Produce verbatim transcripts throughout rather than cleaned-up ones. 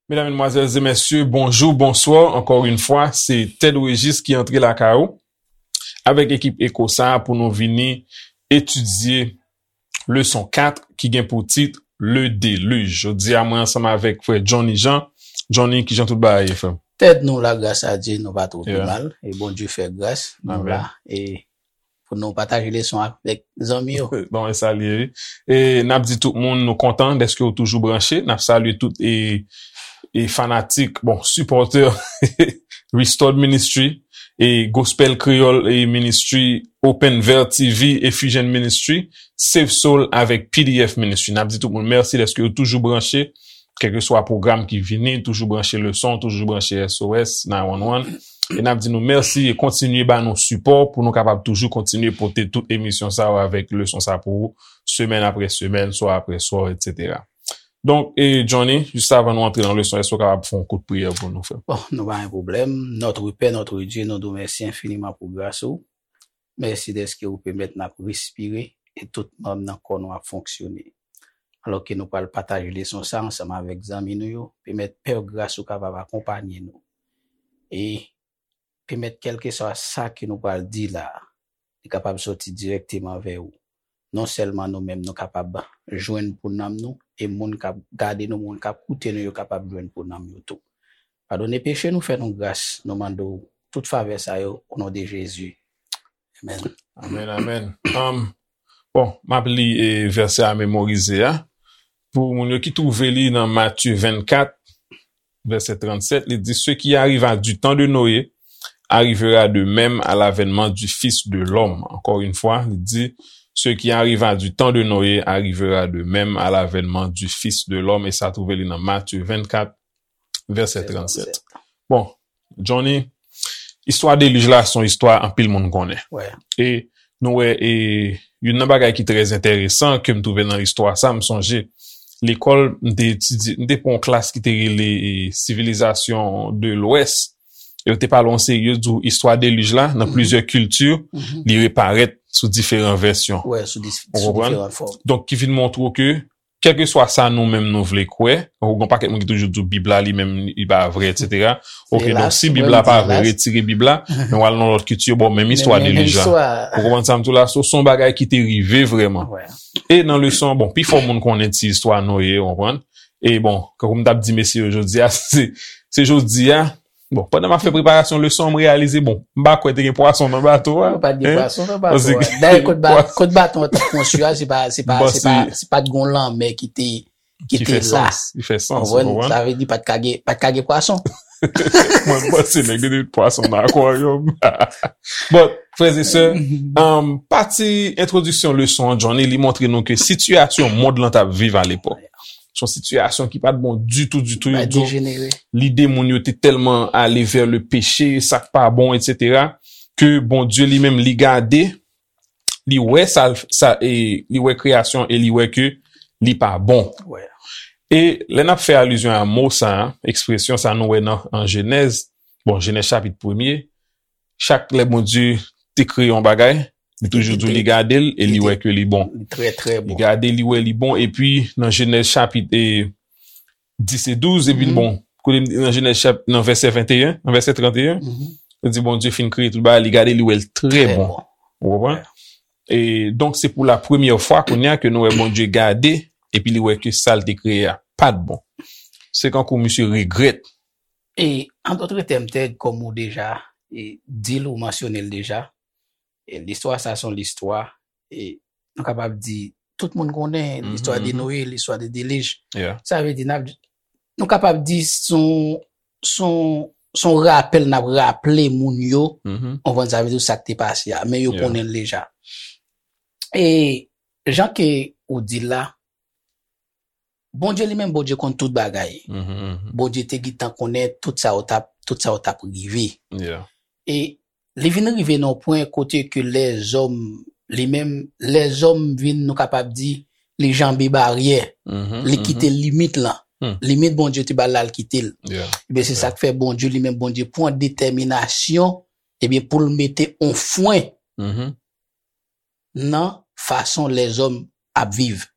Medam, medmwazèl e mesye, bonjou, bonswa. Ankò yon fwa, se Ted Régis ki antre lakay ou avèk ekip Eko sa a pou nou vini etidye leson kat ki gen pou tit Le Déluge. Jodi a, mwen ansanm avèk frè Johnny Jean. Johnny, kijan tout bagay ye, frè m? Ted, nou la, gras a Dye, nou pa twò pi mal. E Bondye fè gras, nou la. E pou nou pataje leson avèk zanmi yo. Bon, e salye, wi. E n ap di tout moun nou kontan dèske w toujou branche. N ap salye tout e, e fanatik, bon, sipòtè Restored Ministry, e Gospel Creole e Ministry, Open Veil T V, e Fusion Ministry, Save Soul avèk P D F Ministry. N ap di tout moun mèsi dèske yo toujou branche, kèlkeswa pwogram ki vini, toujou branche leson, toujou branche S O S nine one one. E n ap di nou mèsi e kontinye ba nou sipò pou nou kapab toujou kontinye pote tout emisyon sa yo avèk leson sa pou ou, semèn apre semèn, swa apre swa, etsetera. Donk, e Johnny, jis avan nou antre nan leson, èske w kapab fè yon kout priyè pou nou, frè? Bon, nou pa gen pwoblèm. Notre Père, notre Dieu, nou di w mèsi enfiniman pou gras ou. Mèsi dèske ou pèmèt n ap respire e tout manm nan kò nou ap fonksyone. Alò ke nou pral pataje leson sa ansanm avèk zanmi nou yo, pèmèt Pè gras ou kapab akonpanye nou. E pèmèt kèlkeswa sa ke nou pral di la a, li kapab soti dirèkteman vè ou. Non sèlman nou menm nou kapab jwenn pou nanm nou, e moun k ap gade nou, moun k ap koute nou yo kapab jwenn pou nanm yo tou. Padone peche nou, fè nou gras, nou mande w tout favè sa yo, o non de Jezi. Amèn. Amèn, amèn. Um, bon, m ap li e, vèsè a memorize a. Pou moun yo ki twouve li nan Matye vennkat, vèsè trannsèt, li di, Ce qui arriva du temps de Noé arrivera de même à l'avènement du Fils de l'homme. Encore une fois, li di, Ce qui arriva du temps de Noé arrivera de même à l'avènement du Fils de l'homme. E sa twouve li nan Matye vennkat, vèsè trannsèt. Bon, Johnny, istwa delij la se yon istwa anpil moun konnen. E nou wè, e youn nan bagay ki trè enteresan ke m twouve nan istwa sa, m sonje lekòl, m te etidye, m te pran yon klas ki te rele e, Civilisation de l'Ouest. E yo te pale yon seri, yo di w istwa delij la, nan plizyè kilti, li reparèt sou diferan vèsyon. Ou konprann? Donk, ki vin montre w ke kèlkeswa sa nou menm nou vle kwè, ou gen yon pakèt moun ki toujou di Bib la li menm li pa vre, etsetera. Oke, donk si Bib la pa vre, retire Bib la, men w al nan lòt kilti, bon, menm istwa delij la. Ou konprann sa m di w la? So, se yon bagay ki te rive vrèman. E nan leson, bon, pifò moun konnen ti istwa Noye, ou konprann? E bon, kankou m t ap di mesye yo jodi a, se, se jodi a, bon, pandan m ap fè preparasyon leson an, m reyalize, bon, m pa kwè te gen pwason nan bato a. Pa t gen pwason nan bato a. Dayè, kot ba-, kot baton an te konstwi a, se pa, se pa, se pa, se pa t gon lanmè ki te, ki te la. Ki fè sans, ki fè sans, ou konprann? Sa vle di pa t ka gen, pa t ka gen pwason. Mwen, m panse nèg te met pwason nan akwaryòm. Bon, frè e sè, um, pati entwodiksyon leson an, Johnny, li montre nou ke sitiyasyon mond lan t ap viv alepòk. Se yon sitiyasyon ki pa t bon ditou, ditou, ditou. Lide moun yo te tèlman ale vè le peche, sa k pa bon, etsetera, ke Bondye li menm, li gade, li wè sa, sa, e, li wè kreyasyon e li wè ke li pa bon. E lè n ap fè alizyon a mo sa, ekspresyon sa nou wè nan, an Jenèz, bon, Jenèz chapit premye, chak lè Bondye te kreye yon bagay, li toujou di w li gade l e li wè ke li bon. Li trè, trè bon. Li gade, li wè li bon, epi nan Jenèz chapit, e, dis e douz, epi bon, kote m di nan Jenèz chap-, nan vèsè venteyen, nan vèsè tranteyen, li di Bondye fin kreye tout bagay, li gade, li wè l trè bon. Ou konprann? E donk, se pou la premyè fwa kounye a ke nou wè Bondye gade, epi li wè ke sa l te kreye a pa t bon. Se kankou misye regrèt. E, an dòt tèm, Ted, kòm ou deja, e, di l, ou mansyone l deja, e, listwa sa se yon listwa, e, nou kapab di, tout moun konnen listwa de Noye, listwa de delij. Sa vle di, n ap, nou kapab di se yon, se yon, se yon rapèl n ap raple moun yo, ou konprann sa vle di sa k te pase a, men yo konnen l deja. E, jan ke ou di l la, Bondye li menm, Bondye konn tout bagay. Bondye te gentan konnen tout sa yo t ap, tout sa yo t ap rive. E li vin rive nan yon pwen kote ke lèzòm, li menm, lèzòm vin, nou kapab di, li janbe baryè. Li kite limit lan. Limit Bondye te ba l la, l kite l. Ebyen, se sa k fè Bondye li menm, Bondye pran detèminasyon, ebyen, pou l mete yon fwen nan fason lèzòm ap viv.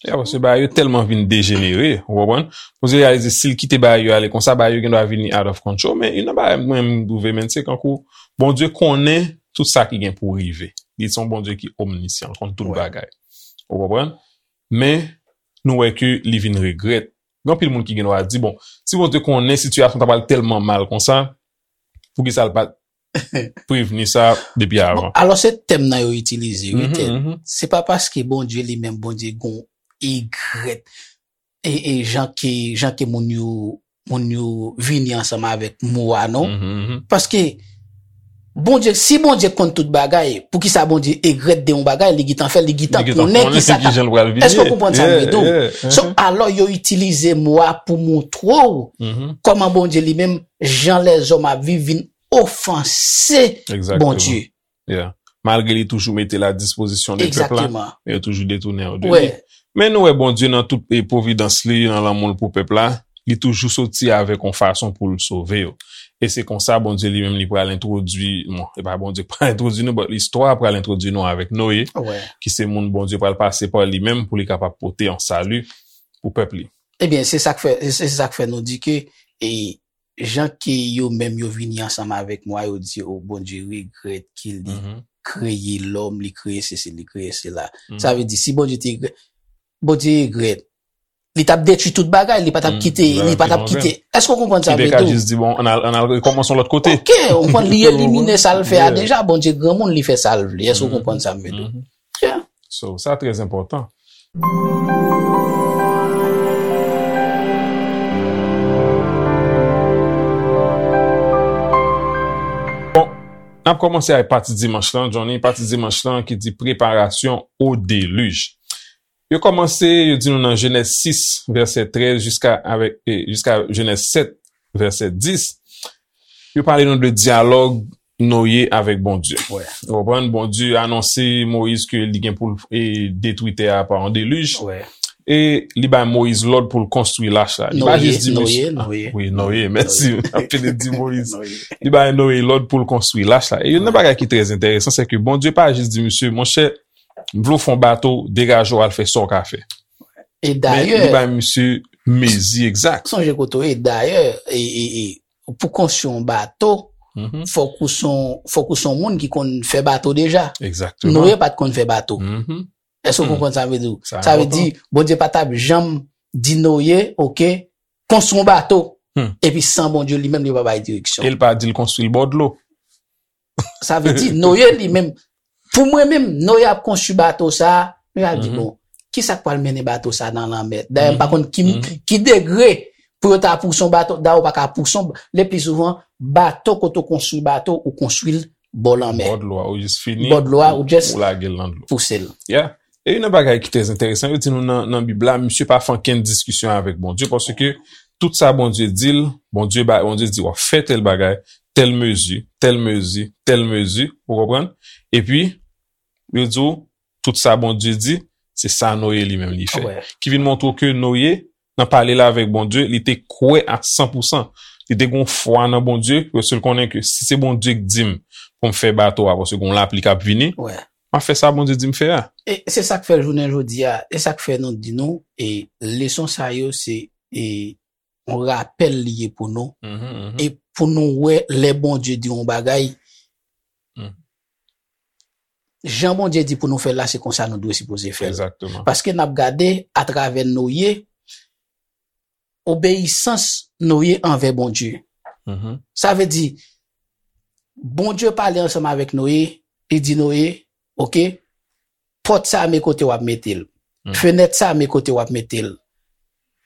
Ya, paske bagay yo tèlman vin dejenere, ou konprann? Bondye reyalize si l kite bagay yo ale konsa, bagay yo gen dwa vini out of control. Men youn nan bagay mwen m twouve, men se kankou Bondye konnen tout sa ki gen pou rive. Li se yon Bondye ki omnisyan, l konn tout bagay. Ou konprann? Men nou wè ke li vin regrèt. Gen anpil moun ki gen dwa di, bon, si Bondye konnen sitiyasyon ta pral tèlman mal konsa, poukisa l pa t prevni sa depi avan? Alò, se tèm nan yo itilize, wi, Ted. Se pa paske Bondye li menm, Bondye gon egrèt. E, e jan ke, jan ke moun yo, moun yo vini ansanm avèk mo a, non? Paske Bondye, si Bondye konn tout bagay, poukisa Bondye egrèt de yon bagay, li gentan fè, li gentan konnen ki sa k ap. Èske w konprann sa m vle di w? So, alò, yo itilize mo a pou montre w kòman Bondye li menm, jan lèzòm ap viv, vin ofanse Bondye. Yeah. Malgre li toujou mete l a dispozisyon de pèp la, men yo toujou detounen yo de li. Men nou wè Bondye nan tout e pwovidans li, nan lanmou l pou pèp la, li toujou soti avèk yon fason pou l sove yo. E se konsa Bondye li menm li pral entwodui, bon, e pa Bondye k pral entwodui nou, but listwa pral entwodui nou avèk Noye, ki se moun Bondye pral pase pa li menm pou li kapab pote yon sali pou pèp li. Ebyen, se sa k fè, se sa k fè nou di ke e, jan ke yo menm yo vini ansanm avèk mwa, yo di, o, Bondye regrèt ke li kreye lòm, li kreye sesi, li kreye sela. Sa vle di, si Bondye te regrèt, Bondye regrèt, li t ap detwi tout bagay, li pa t ap kite, li pa t ap kite. Èske w konprann sa m vle di w? Li te ka jis di, bon, ann al, ann al rekòmanse yon lòt kote. Ok, ou konprann, li elimine sa l fè a deja, Bondye granmoun, li fè sa l vle. Èske w konprann sa m vle di w? Yeah. So, sa trè enpòtan. Bon, n ap kòmanse ak pati dimanch lan, Johnny. Pati dimanch lan ki di préparation au déluge. Yo kòmanse, yo di nou nan Jenèz sis, vèsè trèz, jiska avèk, e, jiska Jenèz sèt, vèsè dis. Yo pale nou de dyalòg Noye avèk Bondye. Ou konprann? Bondye anonse Moyiz ke li gen pou l, e, detwi tè a pa yon delij. E li bay Moyiz lòd pou l konstwi lach la. Li pa jis di Noye, Noye. Wi, Noye, mèsi. M ap pede di Moyiz. Li bay Noye lòd pou l konstwi lach la. E youn nan bagay ki trè enteresan, se ke Bondye pa jis di misye, monchè, m vle w fè yon bato, degaje w al fè sa w ka fè. E dayè, li bay misye mezi egzak. Sonje kote w ye, dayè, e, e, e, pou konstwi yon bato, fòk ou se yon, fòk ou se yon moun ki konn fè bato deja. Egzakteman. Noye pa t konn fè bato. Èske w konprann sa m vle di w? Sa vle di, Bondye pa t ap janm di Noye, oke, konstwi yon bato, epi san Bondye li menm li pa bay direksyon. E l pa di l konstwi l bò dlo. Sa vle di, Noye li menm, pou mwen menm, Noye ap konstwi bato sa a, Noye ap di, bon, ki sa k pral mennen bato sa a nan lanmè? Dayè, m pa konn ki, ki degre pou yo ta pouse yon bato, dayè, ou pa ka pouse yon, le pli souvan, bato, kote w konstwi bato, ou konstwi l bò lanmè. Bò dlo a, ou jis fini, bò dlo a, ou jis ou lage l nan dlo. Pouse l. Yeah. E youn nan bagay ki trè enteresan, yo di nou nan, nan Bib la, misye pa fè ankenn diskisyon avèk Bondye, paske tout sa Bondye di l, Bondye ba, Bondye di w ap fè tèl bagay, tèl mezi, tèl mezi, tèl mezi, ou konprann? Epi, yo di w, tout sa Bondye di, se sa Noye li menm li fè. Ki vin montre w ke Noye, nan pale l avèk Bondye, li te kwè a san pou san. Li te gen yon fwa nan Bondye, paske l konnen ke si se Bondye k di m pou m fè bato a, paske gen yon lapli k ap vini, m ap fè sa Bondye di m fè a. E se sa k fè jounen jodi a, e sa k fè nou di nou, e leson sa yo se, e yon rapèl li ye pou nou. E pou nou wè lè Bondye di yon bagay, jan Bondye di pou nou fè l la, se konsa nou dwe sipoze fè l. Paske n ap gade atravè Noye, obeyisans Noye anvè Bondye. Sa vle di, Bondye pale ansanm avèk Noye, li di Noye, oke, pòt sa a men kote w ap mete l. Fenèt sa a men kote w ap mete l.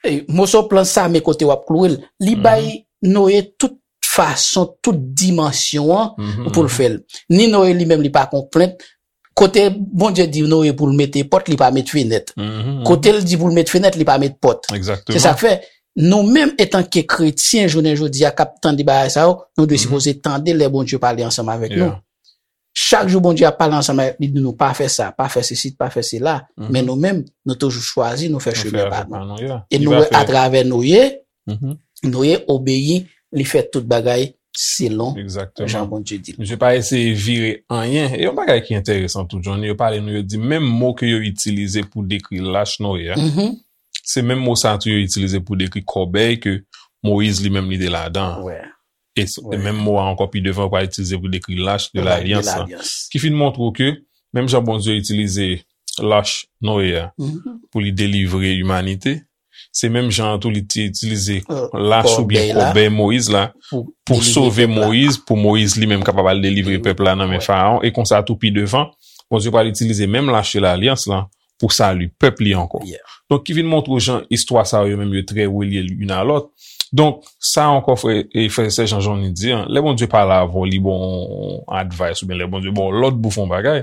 E, moso planch sa a men kote w ap klouwe l. Li bay Noye tout fason, tout dimansyon an pou l fè l. Ni Noye li menm li pa konplent. Kote Bondye di Noye pou l mete pòt, li pa met fenèt. Kote l di pou l met fenèt, li pa met pòt. Se sa k fè, nou menm etanke kretyen, jounen jodi a, k ap tande bagay sa yo, nou dwe sipoze tande lè Bondye pale ansanm avèk nou. Chak jou Bondye ap pale ansanm avèk nou, di nou pa fè sa, pa fè sesi, pa fè sela. Men nou menm, nou toujou chwazi, nou fè chemen pa nou. E nou wè atravè Noye, Noye obeyi, li fè tout bagay selon jan Bondye di l. Misye pa eseye vire anyen. E yon bagay ki enteresan tou, Johnny, yo pale nou, yo di menm mo ke yo itilize pou dekri lach Noye a, se menm mo sa a tou yo itilize pou dekri kòbèy ke Moyiz li menm li te ladan an. E menm mo a ankò pi devan yo pral itilize pou dekri lach de lalyans lan. Ki fin montre w ke menm jan Bondye itilize lach Noye a pou li delivre imanite, se menm jan an tou li te itilize lach oubyen kòbèy Moyiz la pou sove Moyiz, pou Moyiz li menm kapab al delivre pèp la nan men Farawon. E konsa tou pi devan, Bondye pral itilize menm lach de lalyans lan pou sali pèp li ankò. Donk, ki vin montre w jan istwa sa yo menm yo trè relye youn a lòt. Donk, sa ankò, frè e frè sè, jan Johnny di an, lè Bondye pale avè w, li ba w yon advice oubyen lè Bondye ba w lòd pou fè yon bagay,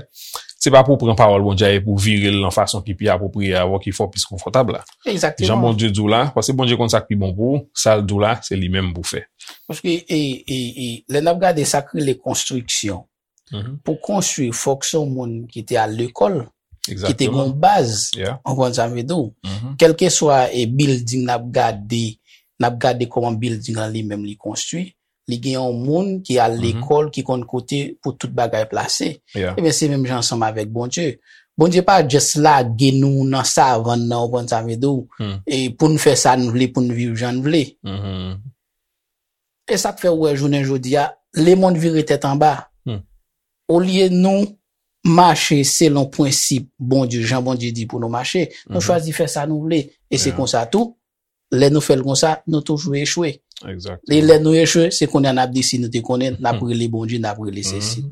se pa pou w pran pawòl Bondye a e pou w vire l nan fason ki pi apwopriye avè w, ki fè w plis konfòtab la. Jan Bondye di w la, paske Bondye konn sa k pi bon pou ou, sa l di w la, se li menm pou w fè. Paske e, e, e, lè n ap gade sa k rele konstriksyon, pou konstwi, fòk se yon moun ki te al lekòl, ki te gen yon baz, w konprann sa m vle di w. Kèlkeswa e bilding n ap gade, n ap gade kòman bilding lan li menm li konstwi, li gen yon moun ki al lekòl, ki konn kote pou tout bagay plase. Ebyen, se menm jan ansanm avèk Bondye. Bondye pa just lage nou nan savann nan, w konprann sa m vle di w, e pou n fè sa n vle, pou n viv jan n vle. E sa k fè w wè jounen jodi a, lemonn vire tèt anba. Olye nou mache selon prensip Bondye, jan Bondye di pou nou mache, nou chwazi fè sa nou vle. E se konsa tou, lè nou fè l konsa, nou toujou echwe. E lè nou echwe, se kounye a n ap di si nou te konnen, n ap rele Bondye, n ap rele sesi.